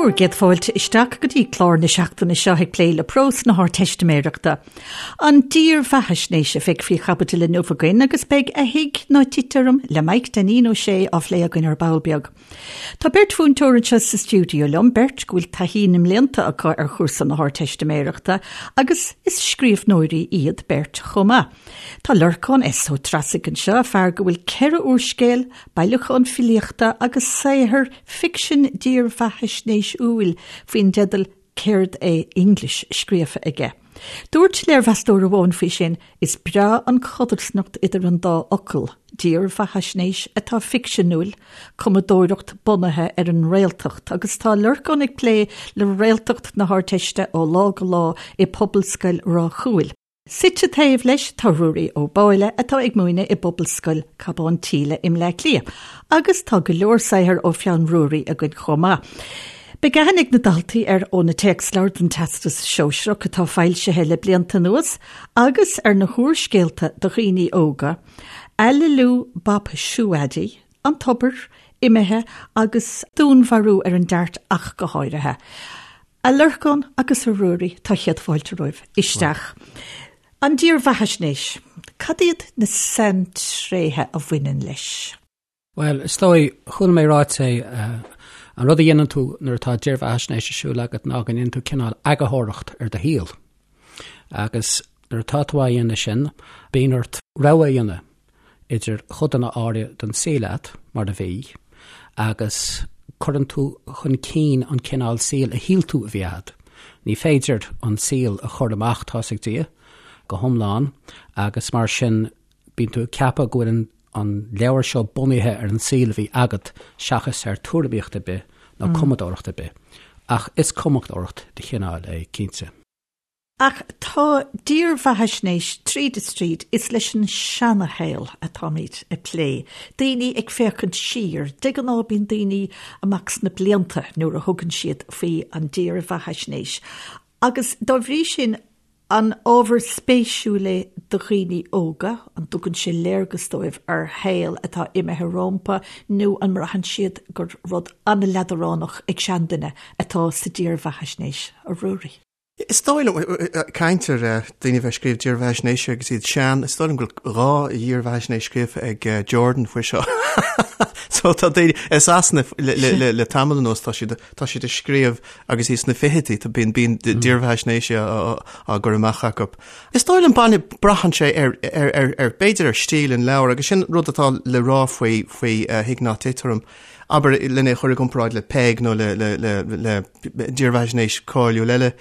Bhur gcéad fáilte isteach go dtí clár na seachtaine seo ag plé le prós na hArdteistiméireachta. An dírbheathaisnéis a bheidh faoi chaibidil inniu againn agus beidh A Thig Ná Tit Orm le Maidhc Dainín Ó Sé á phlé againn ar ball beag. Tá beirt mhúinteoir anseo sa stiúideo liom, beirt go bhfuil taithí na mblianta acu ar chúrsa na hArdteistiméireachta agus is scríbhneoirí iad beirt chomh maith. Tá Lorcán S. Ó Treasaigh anseo, fear go bhfuil 4 úrscéal, bailiúchán filíochta agus saothar ficsin dírbheathaisnéisiúil faoin dteideal Céard é English scríofa aige. Dúirt léirmheastóir amháin faoi sin, Is breá an chodarsnacht idir an dá fhocal, dírbheathaisnéis atá ficseanúil, cumadóireacht bunaithe ar an réaltacht agus tá Lorcán ag plé le réaltacht na hArdteiste ó lá go lá i Pobalscoil Ráth Cúil. Suite taobh leis tá Ruairí Ó Báille atá ag múineadh i bPobalscoil Cabán tSíle i mBleá Cliath agus tá go leor saothair ó pheann Ruairí againn chomh maith. Beidh aithne ag na daltaí air ó na téacsleabhair don Teastas Sóisearach atá foilsithe le blianta anuas agus ar na húrscéalta do dhaoine óga, Aililiú Bap Siúaidí, An Tobar, Imithe agus Dúnmharú ar an Dart ach go háirithe. A Lorcáin agus a Ruairí, tá céad fáilte romhaibh isteach. An dírbheathaisnéis, cad iad na saintréithe a bhaineann leis? Bhuel, is dóigh, chuala mé ráite é, an rud a dhéanann tú nuair atá dírbheathaisnéis ar siúl agat ná go ndéanann tú cineál eagarthóireacht ar do shaol. Agus nuair atá tú á dhéanamh sin, bíonn ort rogha a dhéanamh. idir chodanna áirithe den saol agat, mar a bhí, agus cuireann tú chun cinn an cineál saoil a shíl tú a bhí agat. Ní féidir an saol a chur amach, tá's ag Dia, go hiomlán, agus mar sin bíonn tú ag ceapadh go bhfuil an leabhar seo bunaithe ar an saol a bhí agat seachas ar tuairimíocht ar bith nó cumadóireacht ar bith. Ach is cumadóireacht de chineál é, cinnte. Ach tá dírbheathaisnéis tríd is tríd, is leis an seanashaol atáimid ag plé, daoine ag féachaint siar, de ghnáth bíonn daoine amach sna blianta nuair a thugann siad faoi an dírbheathaisnéis agus dá bhrí sin an ábhar spéisiúil é do dhaoine óga, an dtugann sé léargas dóibh ar shaol atá imithe rómpa nó an mbraitheann siad gur rud an-leadránach ag seanduine atá sa dírbheathaisnéis, a Ruairí? Is dóigh liom, caint ar daoine a bheith ag scríobh dírbheathaisnéise agus iad sean, is dóigh liom go bhfuil 2 dhírbheathaisnéis scríofa ag Jordan faoi seo. So tá daoine, i Sasana le tamall anuas tá siad tá siad ag scríobh agus iad sna fichidí, tá bíonn bíonn dírbheathaisnéisí á gcur amach acu. Is dóigh liom baine braitheann sé ar ar ar ar b'fhéidir ar stíl an leabhair agus sin rud atá le rá faoi faoi Thig Ná Tit Orm. Abair lena chur i gcomparáid le Peig nó le le le le dírbheathaisnéis cáiliúil eile.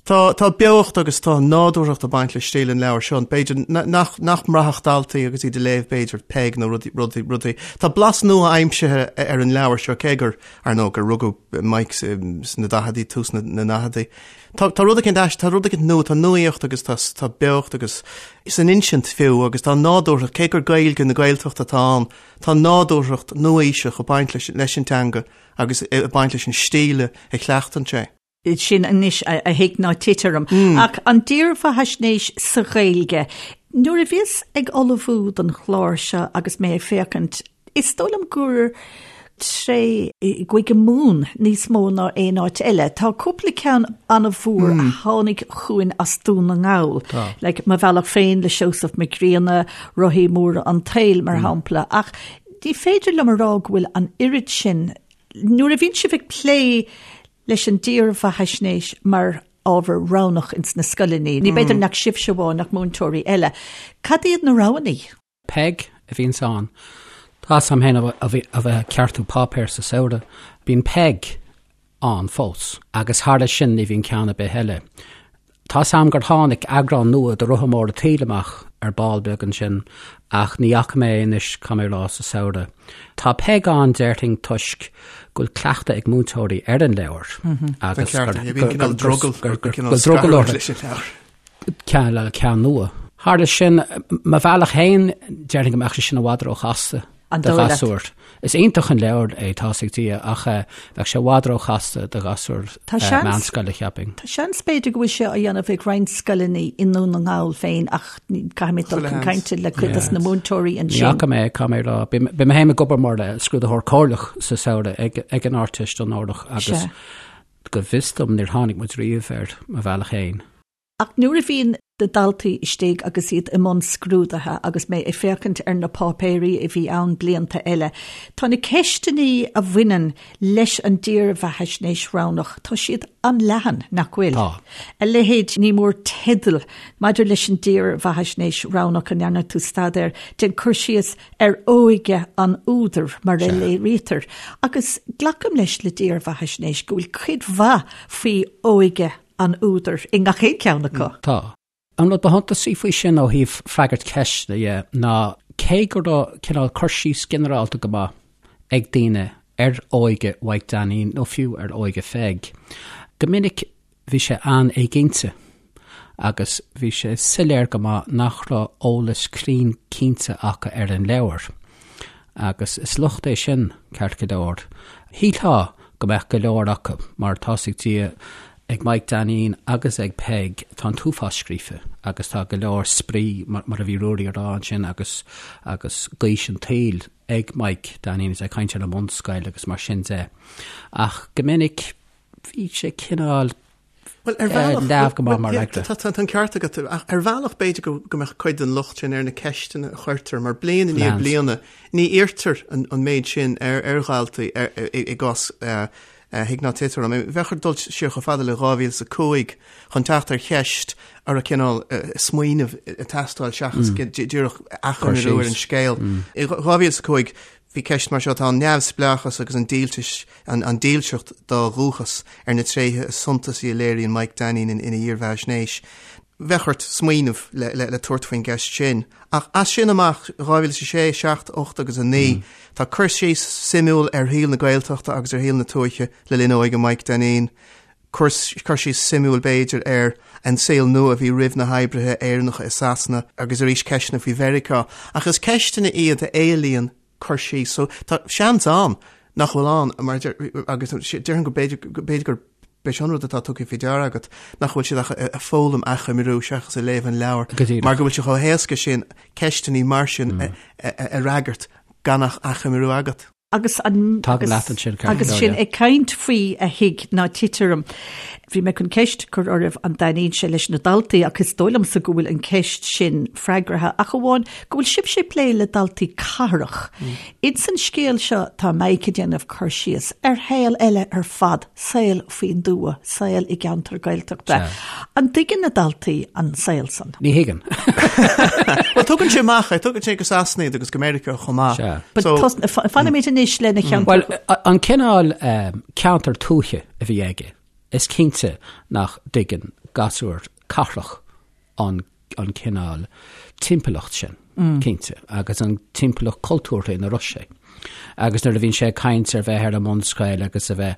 Tá, tá beocht agus tá nádúrthacht ag baint le stíl an leabhair seo, b'fhéidir nach, nach mbraithfeadh daltaí agus iad ag léamh b'fhéidir Peig nó rudaí, rudaí, rudaí. Tá blas nua-aimsithe ar an leabhar seo, cé gur, ar ndóigh, gur rugadh Mike sna daicheadaí, tús na ndaicheadaí. Tá, tá rud eicínt ais, tá rud eicínt nua, tá nuaíocht agus tá, tá beocht agus san insint fiú agus tá nádúrthacht, cé gur Gaeilge na Gaeltachta atá ann, tá nádúrthacht nua-aoiseach ag baint leis, leis an teanga. agus ag baint leis an stíl a chleachtann sé. Sin anois a thig ná tit orm. Ach an dírbheathaisnéis sa Ghaeilge, nuair a bhíos ag ullmhú don chlár seo agus mé ag féachaint, is dóigh liom gur tré i gCúige Mumhan níos mó ná aon áit eile. Tá cúpla ceann an-mhór a tháinig chugainn as Dún na nGall, like Mo Bhealach Féin le Seosamh Mac Grianna, Rothaí Móra an tSaoil, mar shampla, ach Ní féidir liom a rá go bhfuil an oiread sin, nuair a bhíonn sibh ag plé leis an dírbheathaisnéis mar ábhar roghnach ins na scoileanna, ní b'fhéidir nach sibhse amháin ach múinteoirí eile, cad iad na roghanna? Peig a bhíonns ann. Tá's a'm féin a bheith ag ceartú páipéir sa samhradh, bíonn Peig ann fós, agus thar sin ní bhíonn ceann ar bith eile. Tá's a'm gur tháinig eagrán nua de Rotha Mór an tSaoil amach ar ball beag ansin, ach ní fhaca mé é anois, caithfidh mé a rá, sa samhradh. Tá Peig ann, déarfainn, toisc go bhfuil cleachtadh ag múinteoirí ar an leabhar agus gur drogall orthu ceann nua. Thar sin, mo bhealach féin, déarfainn go mbeadh sé sin i bhfad róchasta. Do ghasúr. Is iontach an leabhar é, tá's ag Dia, ach bheadh sé i bhfad róchasta do ghasúr meánscoile, cheapfainn. Tá seans b'fhéidir go bhfuil sé á dhéanamh ag roinnt scoileanna i nDún na nGall féin ach caithfidh mé dul chun cainte le cuid des na múinteoirí ansin. Ní fhaca mé, caithfidh mé a rá. Beidh mé féin ag obair mar scrúdaitheoir comhairleach sa samhradh ag an Ardteist onórach agus go bhfios dom níor tháinig muid riamh air mo bhealach féin. Ach nuair a bhíonn na daltaí istigh agus iad i mbun scrúdaithe agus mé ag féachaint ar na páipéirí a bhí ann blianta eile, tá na ceisteanna a bhaineann leis an dírbheathaisnéis roghnach, tá siad an-leathan, nach bhfuil? Tá. A leithéid, ní mór teideal maidir leis an dírbheathaisnéis roghnach a ndearna tú staidéar, déan cur síos ar óige an údair mar a léirítear. Agus glacaim leis le dírbheathaisnéis go bhfuil cuid mhaith faoi óige an údair i ngach aon cheann acu. Tá. An rud ba shuntasaí faoi sin ó thaobh freagairt ceisteanna dhe ná cé go raibh cineál cur síos ginearálta go maith ag daoine ar óige Mhaidhc Dainín nó fiú ar óige Pheig, go minic bhí sé an-éiginnte agus bhí sé soiléir go maith nach raibh eolas cruinn cinnte acu ar an leabhar. Agus is locht é sin, ceart go leor. Shílfeá go mbeadh go leor acu, mar tá's ag Dia, ag Maidhc Dainín agus ag Peig, tá an t-uafás scríofa agus tá go leor spraoi, mar a bhí Ruairí a rá ansin, agus agus gaois an tsaoil ag Maidhc Dainín is é ag caint ar an mbunscoil agus mar sin de. Ach go minic bhí sé cineál Bhuel, ar bhealach... Leamh go maith mar fhreagra. Tá an ceart agat. Ach ar bhealach b'fhéidir go mbeadh cuid den locht sin ar na ceisteanna a chuirtear, mar bliain i ndiaidh bliana ní iarrtar an méid sin ar dhaltaí i gcás Thig Ná Tit Orm. Bheadh ort dul siar chomh fada le 2005 chun teacht ar cheist a raibh cineál smaoineamh ag teastáil seachas díreach achoimriú ar an scéal. I 2005 bhí ceist mar seo, tá an neamhspleáchas agus an díltis, an dílseacht dá dhúchas ar na tréithe is suntasaí a léiríonn Mike Dainín ina dhírbheathaisnéis. Bheadh ort smaoineamh le tabhairt faoin gceist sin. Ach as sin amach, 2006, 7, 8 agus 9, tá cur síos suimiúil ar shaol na Gaeltachta agus ar shaol na tuaithe le linn óige Mike Dainín, cur síos suimiúil b'fhéidir ar an saol nua a bhí roimh na hoibrithe Éireannacha i Sasana agus arís ceisteanna faoi Mheiriceá. Ach is ceisteanna iad a éilíonn cur síos. So tá seans ann nach bhfuil ann mar agus déarfainn go b'fhéidir go b'fhéidir gur b'é sin an rud atá tugtha faoi deara agat nach bhfuil siad ach ag foghlaim achoimriú seachas ag léamh an leabhair mar go bhfuil sé chomh héasca sin ceisteanna mar sin a fhreagairt gan ach achoimriú agat. Agus an Tagaim leat ansin, ceart go leor, yeah. Ag caint faoi a thig ná tit orm, bhí mé chun ceist a chur oraibh an dtaitníonn sé leis na daltaí ach is dóigh liomsa go bhfuil an ceist sin freagartha ach amháin go bhfuil sibhse ag plé le daltaí cathrach. Ins an scéal seo tá Mike ag déanamh cur síos ar shaol eile ar fad, saol faoin dtuath, saol i gceantar Gaeltachta. An dtuigeann na daltaí an saol san? Ní thuigeann. Bhuel, tugann sé amach é, tugann sé go Sasana iad agus go Meiriceá chomh maith. Sea. But So- tos- fa- Fanfaimid anois lena cheantar. Bhuel, a- an cineál um, ceantar tuaithe a bhí aige, is cinnte nach dtuigeann gasúr cathrach an an cineál timpeallacht sin, cinnte, agus an timpeallacht cultúrtha ina raibh sé. Agus nuair a bhíonn sé ag caint ar bheith ar an mbunscoil agus a bheith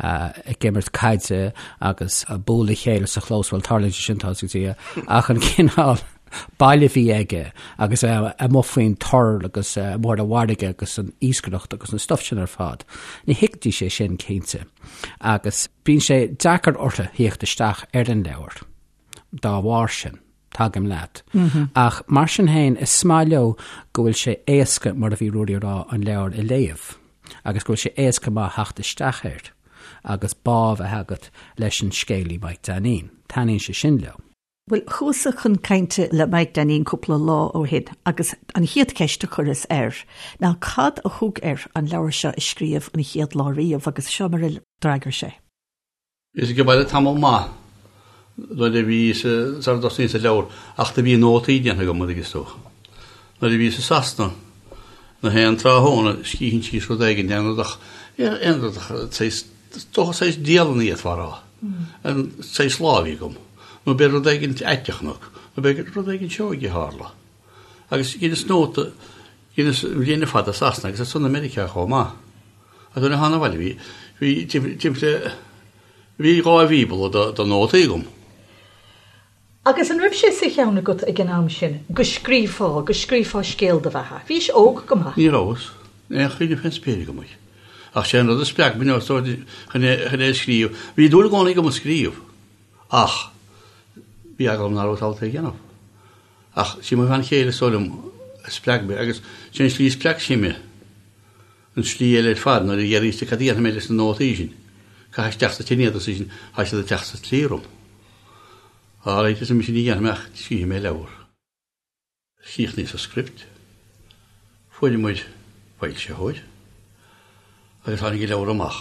ag imirt caide agus ag bualadh a chéile sa chlós, bhuel, tarlaíonn sé sin, tá's ag Dia, ach an cineál baile a bhí aige agus a bheith amuigh faoin tor agus amuigh ar an bhfarraige agus an iascaireacht agus an stuif sin ar fad, ní thuigfidís é sin, cinnte. Agus bíonn sé deacair orthu theacht isteach ar an leabhar. dá bharr sin. Tagaim leat. Ach mar sin féin, is maith leo go bhfuil sé éasca, mar a bhí Ruairí a rá, an leabhar a léamh agus go bhfuil sé éasca maith theacht isteach air agus bá a bheith agat leis an scéalaí Mike Dainín. Taitníonn sé sin leo. Bhuel, chuas-sa chun cainte le Mike Dainín cúpla lá ó shin agus an chéad cheist a chuireas air ná cad a thug air an leabhar seo a scríobh an chéad lá riamh agus seo mar a d'fhreagair sé. Bhíos ag baile tamall maith nuair a bhíos sara dtosnaíos an leabhar ach do bhí nótaí déanta agam an dtuigeann tú. Nuair a bhíos i Sasana na haon tráthnóna scríobhainn síos rud éigin aon rud ach aon rud ach saghas is dócha saghas dialann a d'fhéadfá a rá. An saghas lá a bhí agam. Nó b'fhéidir rud éigin aiteach nó nó b'fhéidir rud éigin seoigh a tharla. Agus dheineas nóta dheineas an bhliain ar fad i Sasana agus ansan i Meiriceá chomh maith. Agus nuair a thána abhaile bhí, bhí timpeall, bhí 2 bhíobla de, de nótaí agam. Agus an raibh sé sa cheann agat ag an am sin go scríobhfá, go scríobhfá scéal do bheatha? Bhís óg go maith. Ní rabhas. Aon chuimhne fén spéir agam air. Ach sé an rud a spreag mé chun é a scríobh. Bhí dúil i gcónaí agam ag scríobh. Ach bhí eagla orm nach rabhas ábalta é a dhéanamh. Ach sí mo bhean chéile is dóigh liom a spreag mé agus sé an slí a spreag sí mé an slí eile ar fad nuair a d'fhiafraíos di cad a dhéanfaidh mé leis na nótaí sin. Caith isteach sa tine iad arsa sise, tá siad ag teacht sa tslí orm. All right, arsa mise ní dhéanfaidh mé ach scríobhfaidh mé leabhar. Chríochnaíos an script, fuair muid foilsitheoir agus tháinig an leabhar amach.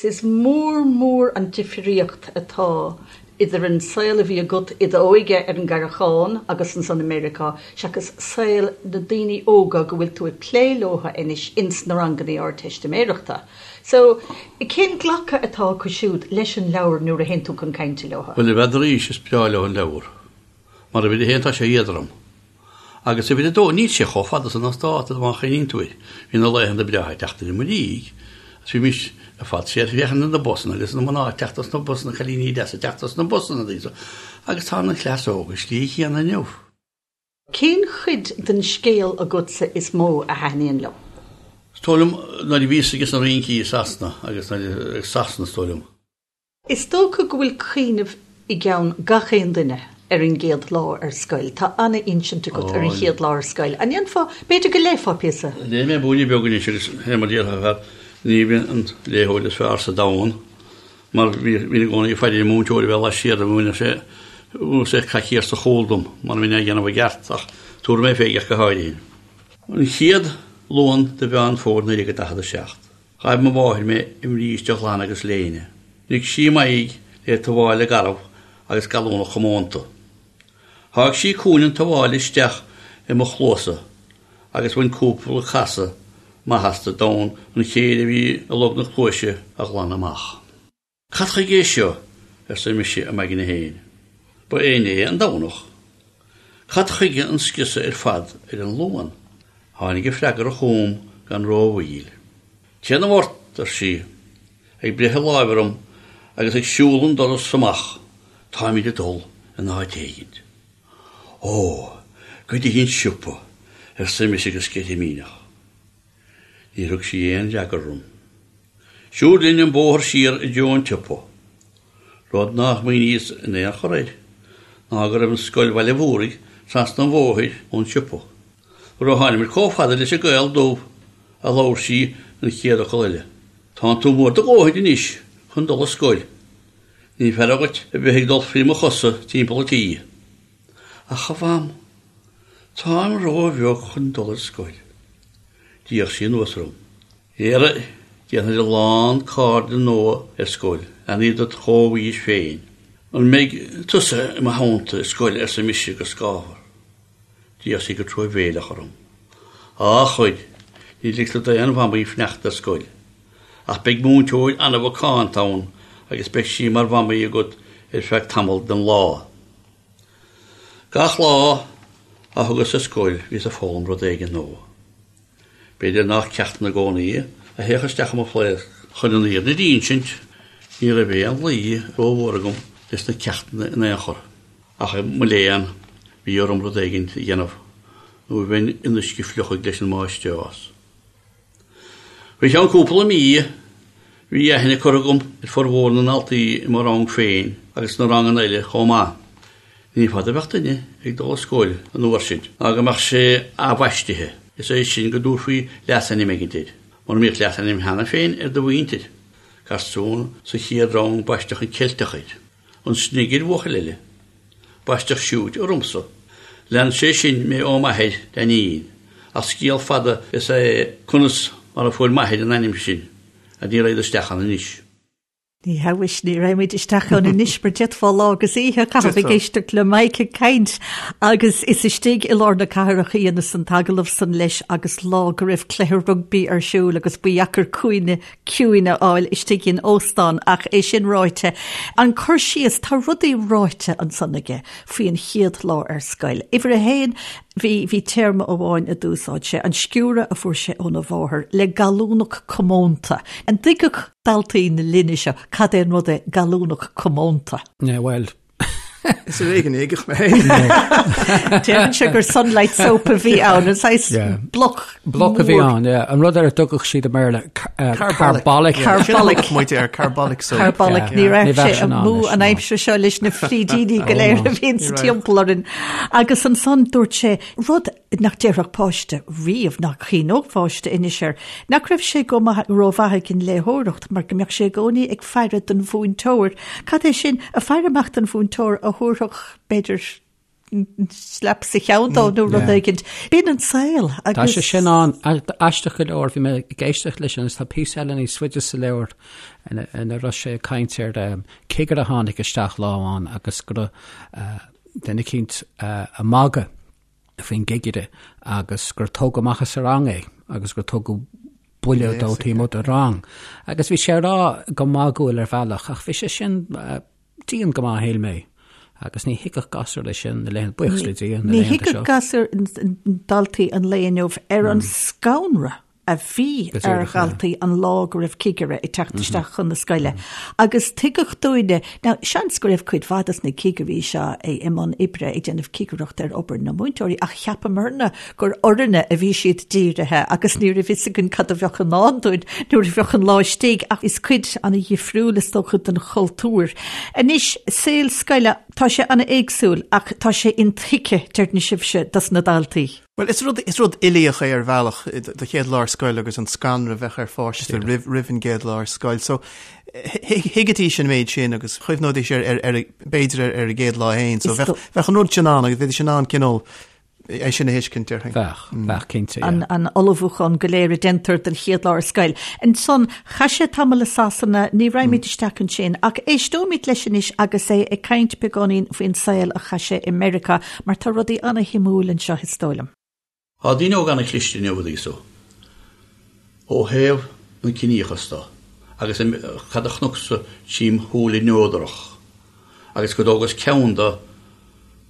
Is mór mór an difríocht atá idir an saol a bhí agat i d'óige ar an gCarrachán agus ansan i Meiriceá seachas saol na daoine óga go bhfuil tú ag plé leo anois ins na rangannaí Ardteistiméireachta. So, cén glacadh atá acu siúd leis an leabhar nuair a théann tú chun cainte leo? Bhuel, n'fheadar, is breá leo an leabhar. Mar uimhir a haon tá sé éadrom. Agus uimhir a dó, níl sé chomh fada san as dáta má chuimhníonn tú air. Bhí na laethanta breátha ag teacht i mo dhiaidh agus bhí mise ar fad siar ag féachaint ar na busanna agus na mná ag teacht as na busanna, cailíní deasa ag teacht as na busanna, agus tá an chleas óg an slí chéanna inniu. Cén chuid den scéal agatsa is mó a thaitníonn leo? Is dóigh liom nuair a bhíos ages na rincí i Sasana agus nuair i Sasana is dóigh liom. Is dócha go bhfuil cuimhneamh i gceann gach aon duine ar an gcéad lá ar scoil. Tá an-insint agat ar an chéad lá ar scoil. An ndéanfá, b'fhéidir go léifeá píosa? Léifidh mé buaine beag anois agus fé mar déarfá fear, ní bhíonn an léitheoir is fearr sa domhan mar bhínn i gcónaí ag faire ar an múinteoir a bheith laistiar de mhúineadh sé mhúineadh sé coicíos sa chúl dom mura mbeinn á dhéanamh i gceart ach tabharfaidh mé fé ach go háirithe. An chéad Luan de Mheán Fómhair 1947. Ghaibh mo mháthair mé i mbríste ghlan agus léine. Nigh sí m'aghaidh le tuáille garbh agus gallúnach chomónta. Sháigh sí cúinne an tuáille isteach i mo chluasa agus bhain cúpla casadh maith astu d'fhonn an chéir a bhí i log na cluaise a ghlanadh amach. Cad chuige é seo? arsa mise i m'aigne féin. Ba é inné an Domhnach. Cad chuige an scriosadh ar fad ar an Luan? Tháinig a freagra chugam gan rómhoill. Téanamh ort, ar sí, ag breith a láimhe orm agus ag siúl an doras amach, táimid ag dul in áit éigint. Ó, go dtí an siopa, arsa mise go sceitimíneach. Níor thug sí aon fhreagra orm. Siúd linn an bóthar siar i dtreo an tsiopa. Rud nár smaoiníos in aon chor air ná go raibh an scoil Bhaile Mhúraigh trasna an bhóthair ón siopa. Nuair a tháinimid chomh fada leis an gCaol Dubh a labhair sí an chéad fhocal eile. Tánn tú mór do dhóthain anois chun dul ar scoil. Ní fearra dhuit a bheith ag dul frí mo chosa timpeall an tí. Ach a Mham, táim ró-bheag chun dul ar scoil. D'fhéach sí anuas orm. Dhera, déanfaidh a lán cairde nua ar scoil, leanaí dod chomhaois féin. An mbeidh tusa i mo theannta ar scoil arsa mise go scáfar. D'fhéach sí go truamhéileach orm. Á, a chuid, ní ligtear d'aon mhamaí fanacht ar scoil. Ach beidh múinteoir an-mhacánta ann agus beidh sí mar mhamaí agat ar feadh tamall den lá. Gach lá a thugas ar scoil bhíos ag foghlaim rud éigin nua. B'fhéidir nach ceachtanna i gcónaí a théadh isteach i mo phlaosc. Chun an fhírinne d'insint, ní raibh aon luí rómhór agam leis na ceachtanna in aon chor. Ach mo léan, bhí orm rud éigin a dhéanamh nó bheinn in uisce fliuchaidh leis an máistreás. Faoi cheann cúpla mí, bhí aithne curtha agam ar formhór na ndaltaí i mo rang féin agus sna ranganna eile chomh maith. Ní fada a bheadh duine ag dul ar scoil an uair sin ná go mbeadh sé athbhaistithe, is é sin go dtabharfaí leasainm éigin air, mura mbíodh leasainm cheana féin ar do mhuintir. Garsún sa chéad rang baisteadh an Ceilteach air. An Snig ar bhuachaill eile. Baisteadh Siúit ormsa. Lean sé sin mé ó m'athair, Dainín, ach scéal fada is ea é conas mar a fuair m'athair an ainm sin, and ní raghad isteach ann anois. Ní hea mhuis, ní raghaimid isteach ann anois mar d'fhéadfá lá agus oíche a chaitheamh ag éisteacht le Mike ag caint agus is istigh i lár na cathrach a dheineas an t-agallamh san leis agus lá go raibh cluiche rugbaí ar siúl agus ba dheacair cúinne ciúin a fháil istigh in óstán ach é sin ráite, an cur síos, tá rudaí ráite ansan aige faoi an chéad lá ar scoil. Uimhir a haon, bhí, bhí téarma amháin a d'úsáid sé, an sciúradh a fuair sé óna mháthair le gallúnach comónta. An dtuigfeadh daltaí na linne seo cad é an rud é gallúnach comónta? Yeah, bhuel. Is ar éigean a thuigfeadh mé féin. Déarfainnse gur Sunlight Soap a bhí ann, an saghas bloc Bloc a bhí ann, yeah. An rud ar a dtugadh siad i mBéarla carbolic. Carbolic. Muid ar carbolic soap. Carbolic, ní raibh sé amú an aimsir seo leis na frídíní go léir a bhíonn sa timpeall orainn. Agus ansan dúirt sé rud nach déarfadh páiste riamh, nach gcuimhneodh páiste anois air, nach raibh sé go maith rómhaith ag an léitheoireacht mar go mbeadh sé i gcónaí ag faire don mhúinteoir. Cad é sin, ag faire amach don mhúinteoir a thabharfadh, b'fhéidir, slap sa cheann dó nó rud éigin. B'in an saol agus. Tá sé sin ann. Aisteach go leor, bhí mé ag éisteacht leis sin agus tá píosa eile níos faide sa leabhar ina raibh sé ag caint ar cigire a tháinig isteach lá amháin agus go raibh duine eicínt ag magadh faoin gcigire agus gur tógadh amach as an rang é agus gur tugadh buille dó taobh amuigh den rang. Agus bhí sé á rá go magúil ar bhealach ach bhí sé sin dian go maith, shíl mé. Agus ní thuigfeadh gasúr é sin na laethanta, buíochas le Dia, na laethanta seo. Ní thuigfeadh gasúir daltaí an lae inniu ar an scanradh a bhí ar dhaltaí an lá go raibh cigire ag teacht isteach chun na scoile. Agus tuigeadh dúinne, now seans go raibh cuid mhaith dos na cigirí seo i mbun oibre ag déanamh cigireacht ar obair na múinteoirí ach cheapamarna gur orainne a bhí siad dírithe agus ní raibh fhios againn cad a bheadh i ndán dúinn nuair a bheadh an lá istigh ach is cuid ana-dhifriúil is dócha den chultúr. Anois, saol scoile, tá sé ana-éagsúil ach tá sé intuigthe, deireann sibhse, dos na daltaí. Bhuel, is rud, is rud uilíoch é ar bhealach, do chéad lá ar scoil agus an scanradh a bheadh ar pháiste roimh, roimh an gcéad lá ar scoil. So, thuigfidís an méid sin agus chuimhneoidís ar, ar, ar, b'fhéidir ar, ar a gcéad lá féin. So, bheadh, bheadh an rud sin ann agus bheidís in ann cineál é sin a thuiscint, déarfainn. Bheadh, bheadh cinnte, yeah. An ullmhúchán go léir a déantar don chéad lá ar scoil. Ansan, chaith sé tamall i Sasana, ní raghaimid isteach ansin, ach éisteoimid leis anois agus é ag caint beagáinín faoin saol a chaith sé i Meiriceá, mar tá rudaí ana-shuimiúil anseo, is dóigh liom. Tá daoine óga ana-chliste inniu, a Lisa, ó thaobh an ciníochas de, agus cad a chonacsa tchím shúile neodrach. agus go dtógas ceann de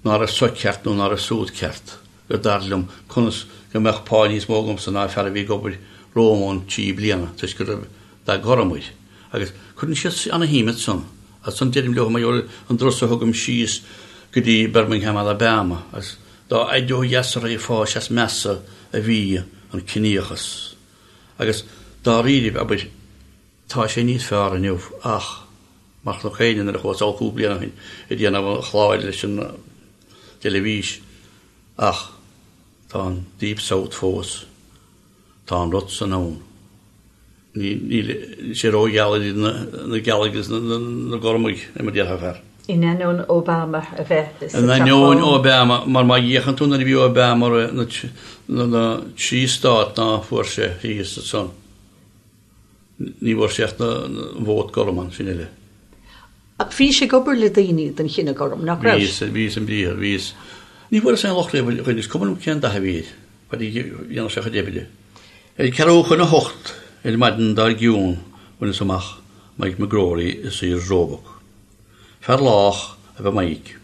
ná raibh so ceart nó ná raibh súd ceart, gur dar liom conas go mbeadh pá níos mó agamsa ná fear a bhí ag obair romham ann 3 bliana toisc go raibh dath gorm air. Agus cuireann siad ana-shuim ansan. Ansan deirim leo mar gheall ar an dturas a thugaim síos go dtí Birmingham, Alabama, agus dá fhaide ó dheas a raghfá is measa a bhí an ciníochas. Agus dáiríribh, abair, Tá sé níos fearr inniu ach, mar chonac éinne nuair a chuas thall cúpla bliain ó shin ag déanamh an chláir leis an dteilifís, ach tá an Deep South fós. Tá an rud san ann. Níl sé rógheal idir na gealaigh agus na gormaigh, mar a déarfá fear. In ainneoin Obama a bheith sa Teach Bán. In ainneoin Obama, mar má fhéachann tú nuair a bhí Obama na trí stát ná fuair sé thíos ansan. Ní bhfuair sé ach an vóta gorm ansin uile. Ach bhís ag obair le daoine den chine gorm, nach raibh? Bhíos, bhíos i mbriathar, bhíos. Ní bhfuaireas aon locht riamh ar dhuine, is cuma liom cén dath a bhí air, fad a dhéanadh sé a chuid oibre. Ar ceathrú chun a hocht ar maidin dár gcionn bhaineas amach Mike McGrory i Sears Roebuck. Fear lách ab ea Mike,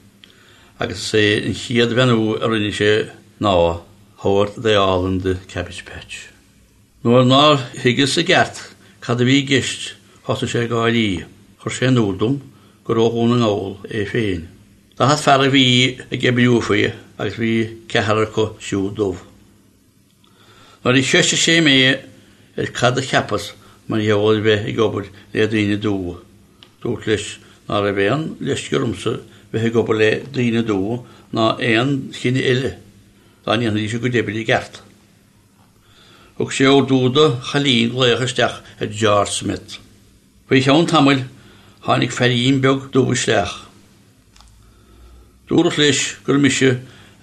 agus is é an chéad bheannú a rinne sé ná, How are they all in the cabbage patch? Nuair nár thuigeas i gceart cad a bhí i gceist thosaigh sé ag gáirí. Chuir sé in iúl dom gur ó Dhún na nGall é féin. 40 fear a bhí ag oibriú faoi agus bhí ceathrar acu siúd dubh. Nuair a cheistigh sé mé ar cad a cheapas mar gheall ar bheith ag obair le daoine dubha, dúrt leis ná raibh aon leisce ormsa bheith ag obair le daoine dubha ná aon chine eile dá ndéanfaidís a gcuid oibre i gceart. Thug sé ordú do chailín glaoch isteach ar George Smith. Faoi cheann tamaill tháinig feairín beag dubh isteach. Dúradh leis gur mise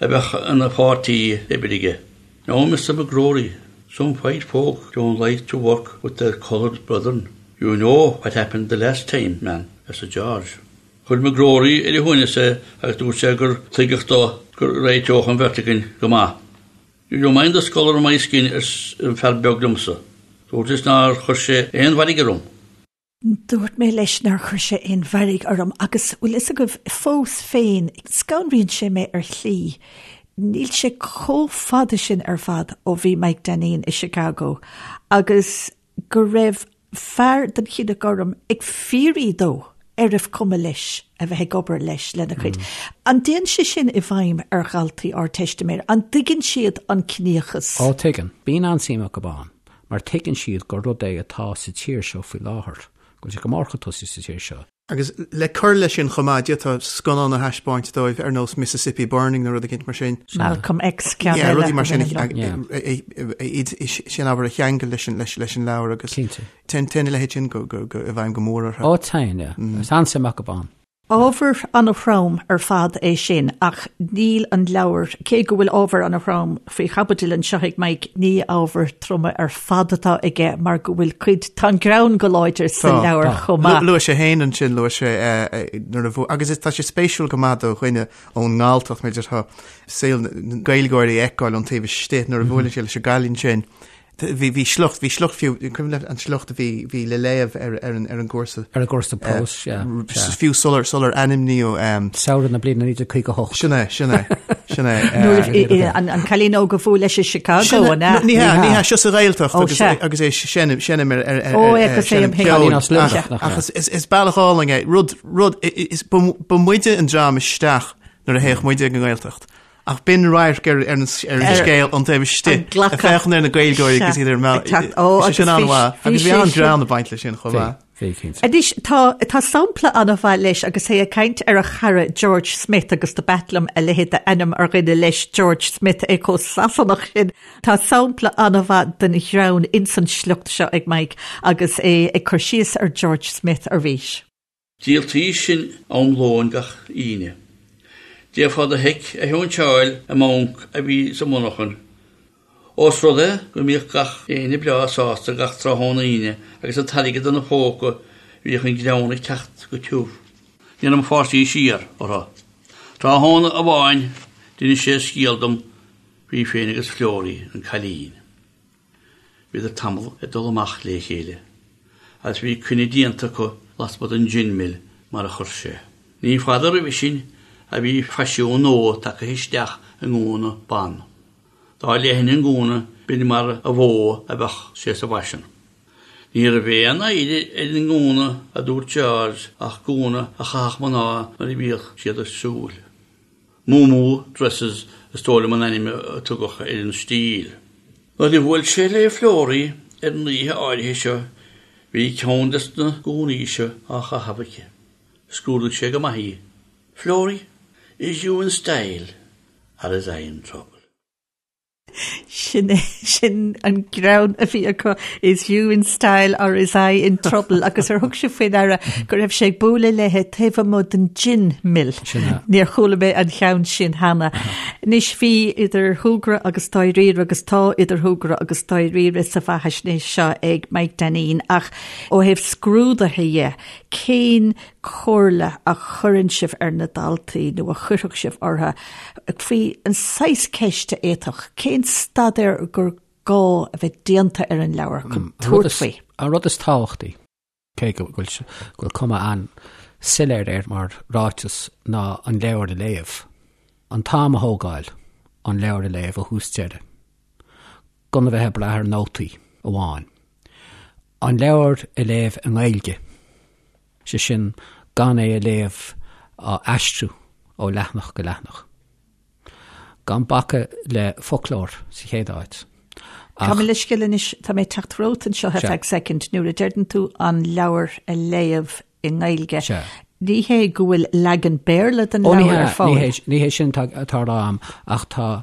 a bheadh ina pháirtí oibre aige. Now, Mr McGrory, some white folk don't like to work with their coloured brethren. You know what happened the last time, man, arsa George. Chuir McGrory ar a shuaimhneas é agus dúirt sé gur tuigeadh dó go réiteodh an bheirt againn go maith. Do you mind the colour of my skin arsa an fear beag liomsa. Dúrt leis nár chuir sé aon mhairg orm. Dúirt mé leis nár chuir sé aon mhairg orm agus, bhfuil fhios agaibh, fós féin, scanraíonn sé mé ar shlí. Níl sé chomh fada sin ar fad ó bhí Mike Dainín i Chicago agus go raibh fear den chine gorm ag fiafraí dó. Arbh cuma leis a bheith ag obair leis lena chuid. An dtéann sé sin i bhfeidhm ar dhaltaí Ardteistiméireachta? An dtuigeann siad an ciníochas? Ó, tuigeann. Bíonn an-suim acu ann, mar tuigeann siad gur rud é atá sa tír seo faoi láthair, go bhfuil sé go mór chun tosaigh sa tír seo. Agus le cur leis sin chomh maith, d'fhéadfá scannán a thaispeáint dóibh ar nós Mississippi Burning nó rud eicínt mar sin. Malcolm X, ceann eile. Yeah, rudaí mar sin, sin ábhar a cheangal leis an leabhar agus téann a leithéid sin i bhfeidhm go mór orthu. Ó, téann, yeah. Is an-suim acu ann. Ábhar an-throm ar fad é sin ach níl an leabhar, cé go bhfuil ábhar an-throm faoi chaibidil anseo ag Mike, ní ábhair troma ar fad atá aige mar go bhfuil cuid, tá an greann go láidir sa leabhar chomh maith. Luaigh sé féin ansin, luaigh sé nuair a bhú, agus tá sé spéisiúil go maith do dhuine ón nGalltacht, mar a déarfá, saol na Gaeilgeoirí a fheiceáil ón taobh istigh nuair a bhuaileann sé leis an gcailín sin. Bhí, bhí sliocht, bhí sliocht fiú, cuimhin leat an sliocht a bhí, bhí le léamh ar, ar an, ar an gcúrsa. Ar an gcúrsa próis, sea, sea. Fiú sular, sular ainmníodh. Samhradh na bliana 1958. Sin é, sin é, sin é. Nuair a bhí, an, an cailín óg a bhuail leis i Chicago, an ea? Ní hea, ní hea, seo sa Ghaeltacht agus, agus é seinm, seinm ar, ar, ar, Ó, agus é seinm ceoil. Cailín as Luimneach, nach ea? Ach is, is, is bealach álainn é, rud, rud, is, ba, ba muide an dream isteach nuair a théadh muide ag an nGaeltacht. Ach b'in radharc ar an scéal ón taobh istigh, ag féachaint ar na Gaeilgeoirí agus iad ar an mbealach. Sé sin an-mhaith. Agus bhí an-ghreann ag baint leis sin chomh maith. Bhí, cinnte. Anois, tá, tá sampla an-mhaith leis agus é ag caint ar a chara George Smith agus do b'ait liom a leithéid d'ainm ar dhuine leis, George Smith, é chomh Sasanach sin. Tá sampla an-mhaith den ghreann ins an sliocht seo ag Mike agus é ag cur síos ar George Smith arís. Díoltaí sin am lóin gach Aoine. D'fhéadfá do sheic a sheinnteáil i mbanc a bhí sa mhonarchan. Ós rud é go mbíodh gach éinne breá sásta gach tráthnóna Aoine agus an t-airgead ina phóca bhíodh an greann ag teacht go tiubh. Ní raibh mo pháistí siar orthu. Tráthnóna amháin d'inis sé scéal dom faoi féin agus Florrie, an cailín. Bhíodar tamall ag dul amach le chéile, agus bhí coinne déanta acu lasmuigh den Gin Mill mar a chuir sé. Ní fada roimhe sin a bhí faisiún nua tagtha isteach i ngúna ban. Dá leithne an gúna b'in mar a mhó a bheadh sé sa bhfaisean. Ní raibh aon oidhre ar an ngúna a dúirt George ach gúna a chaitheadh mná nuair a bhíodh siad ag siúl. Moo-moo dresses is dóigh liom an ainm a tugadh ar an stíl. Nuair a bhuail sé le Florrie ar an oíche áirithe seo bhí ceann des na gúnaí seo á chaitheamh aici. Scrúdaigh sé go maith í. Florrie, is you in style or is I in trouble? Sin é, sin an greann a bhí acu, is you in style or is I in trouble agus ar thug sibh faoi deara go raibh sé ag bualadh léi taobh amuigh den gin mill. Sin é. Níor chuala mé an cheann sin cheana. Anois bhí idir shúgradh agus dáiríre agus tá idir shúgradh agus dáiríre sa bheathaisnéis seo ag Mike Dainín ach ó thaobh scrúdaithe dhe, cén comhairle a chuireann sibh ar na daltaí nó a chuirfeadh sibh orthu faoi an saghas ceist a fhéadfadh, cén staidéar gur gá a bheith déanta ar an leabhar chun tabhairt faoi? An rud is tábhachtaí, cé go bhfuil cuma an-soiléir air mar ráiteas, ná an leabhar a léamh. An t-am a thógáil an leabhar a léamh ó thús deireadh. Gan a bheith ag brath ar nótaí amháin. An leabhar a léamh i nGaeilge, sé sin gan é a léamh á aistriú ó leathanach go leathanach. Gan bacadh le foclóir sa chéad áit. Ach. Gabh mo leithscéal anois, tá mé ag teacht romhat anseo ar feadh soicind, nuair a deireann tú an leabhar a léamh i nGaeilge. Sea. Ní hé go bhfuil leagan Béarla den leabhar ar fáil. Ní hé sin atá á rá agam, ach tá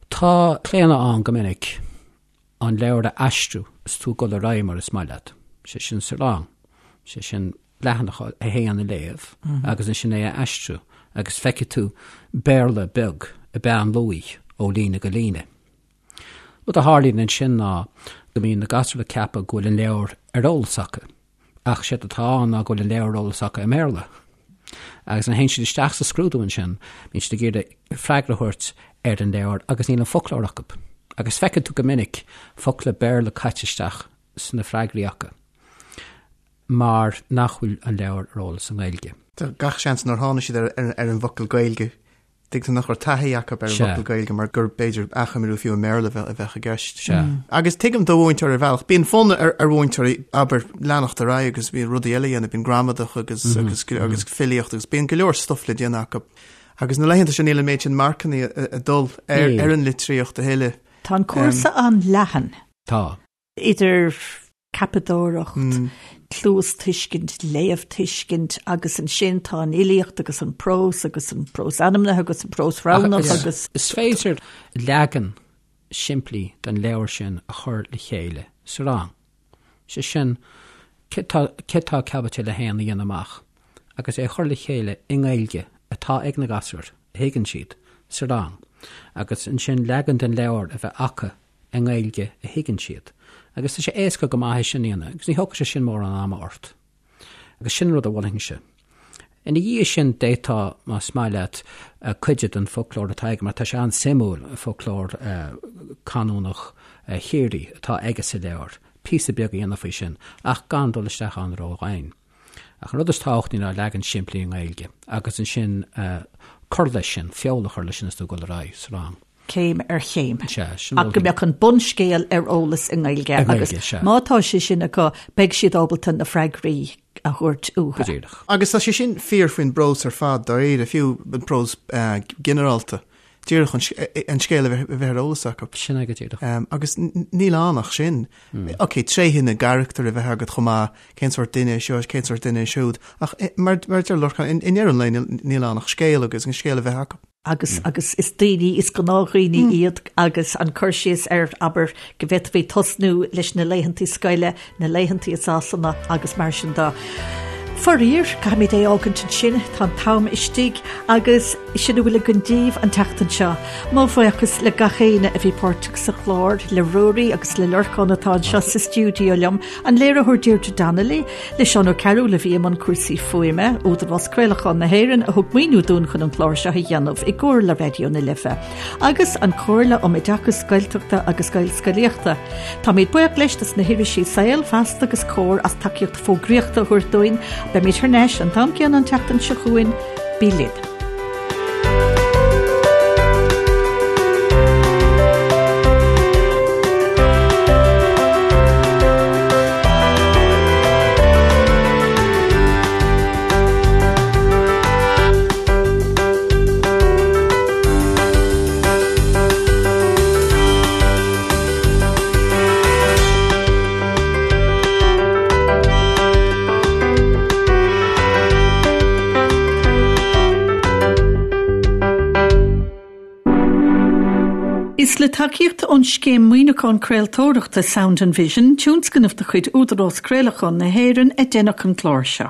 tá claonadh ann go minic an leabhar a aistriú is tú ag dul ar aghaidh mar is maith leat, sé sin sa rang, sé sin leathanach a haon a léamh agus ansin é a aistriú agus feicfidh tú Béarla beag ag beann luí ó líne go líne. Rud a tharlaíonn ansin ná go mbíonn na gasúir ag ceapadh go bhfuil an leabhar ar eolas acu, ach séard atá ann ná go bhfuil an leabhar ar eolas acu i mBéarla. Agus nuair a théann siad isteach sa scrúdú ansin, bíonn siad ag iarraidh freagra a thabhairt ar an leabhar agus níl an foclóir acu. Agus feiceann tú go minic focla Béarla caite isteach sna freagraí acu mar nach bhfuil an leabhar ar eolas i nGaeilge. Tá gach seans nár tháinig siad ar an bhfocal Gaeilge. Tuigeann tú nach raibh taithí acu ar an bhfocal Gaeilge mar gur b'fhéidir achoimriú fiú i mBéarla a bheadh i gceist. Agus tuigim do mhúinteoir ar bhealach, bíonn fonn ar mhúinteoirí abair leanacht ar aghaidh agus bíonn rudaí eile a dhéanamh, bíonn gramadach agus agus agus filíocht agus bíonn go leor stuif le déanamh acu. Agus na laethanta seo níl an méid sin marcanna ag dul ar ar an litríocht a thuilleadh. Tá an cúrsa an-leathan. Tá. Idir ceapadóireacht, cluastuiscint, léamhthuiscint agus ansin tá an fhilíocht agus an prós agus an prós ainmnithe agus an prós roghnach agus. Is féidir leagan simplí den leabhar sin a chur le chéile sa rang. Sé sin, cé tá caibidil a haon a dhéanamh amach agus é a chur le chéile i nGaeilge atá ag na gasúir, a thuigeann siad, sa rang agus ansin leagan den leabhar a bheith acu i nGaeilge a thuigeann siad. Agus tá sé éasca go maith é sin a dhéanamh agus ní thógfaidh sé sin mórán ama ort. Agus sin an rud a mholfainnse. Ina dhiaidh sin d'fhéadfá, más maith leat, cuid den foclóir atá aige, mar tá sé an-suimiúil, foclóir canúnach Chiarraí atá aige sa leabhar, píosa beag a dhéanamh faoi sin, ach gan dul isteach ann ró-dhoimhin. Ach an rud is tábhachtaí ná leagan simplí i nGaeilge agus ansin cur leis sin, feoil a chur leis sin is tú ag dul ar aghaidh sa rang. Céim ar chéim. Sea, sin Ach go mbeadh an bunscéal ar eolas i nGaeilge agus má tá sé sin acu beidh siad ábalta na freagraí a thabhairt uathu. Go díreach. Agus tá sé sin fíor faoin bprós ar fad dáiríre, fiú an prós ginearálta. Díreach an scéal a bheith ar eolas acu. Sin é go díreach. Agus níl ann ach sin. Ok, tréithe na gcarachtar a bheith agat chomh maith, cén sórt duine é seo, cén sórt duine é siúd. Ach mar a deir Lorcán, i ndeireadh an lae níl ann ach scéal agus an scéal a bheith acu. Agus agus is daoine, is gnáthdhaoine iad agus an cur síos ar, abair, go bhféadfaí tosnú leis na laethantaí scoile, na laethantaí i Sasana agus mar sin de. Faraor, caithfimid é a fhágaint ansin, tá an t-am istigh agus sin a bhfuil againn daoibh an tseachtain seo. Mo bhuíochas le gach éinne a bhí páirteach sa chlár, le Ruairí agus le Lorcán atá anseo sa stiúideo liom, an léiritheoir Deirdre Donnelly, le Seán Ó Cearúil a bhí i mbun cúrsaí fuaime, Údarás Craolacháin na hÉireann a thug maoiniú dúinn chun an clár seo a dhéanamh i gcomhar le Raidió na Life, agus an Chomhairle um Oideachas Gaeltachta agus Gaelscolaíochta. Táimid buíoch leis dos na hirisí Saol, Feasta agus Comhar as tacaíocht fógraíochta a thabhairt dúinn. Beimid thar n-ais an t-am céanna an tseachtain seo chugainn. Bí linn. Is le tacaíocht ón Scéim Maoiniúcháin Craoltóireachta Sound and Vision, tionscnamh de chuid Údarás Craolacháin na hÉireann, a deineadh an clár seo.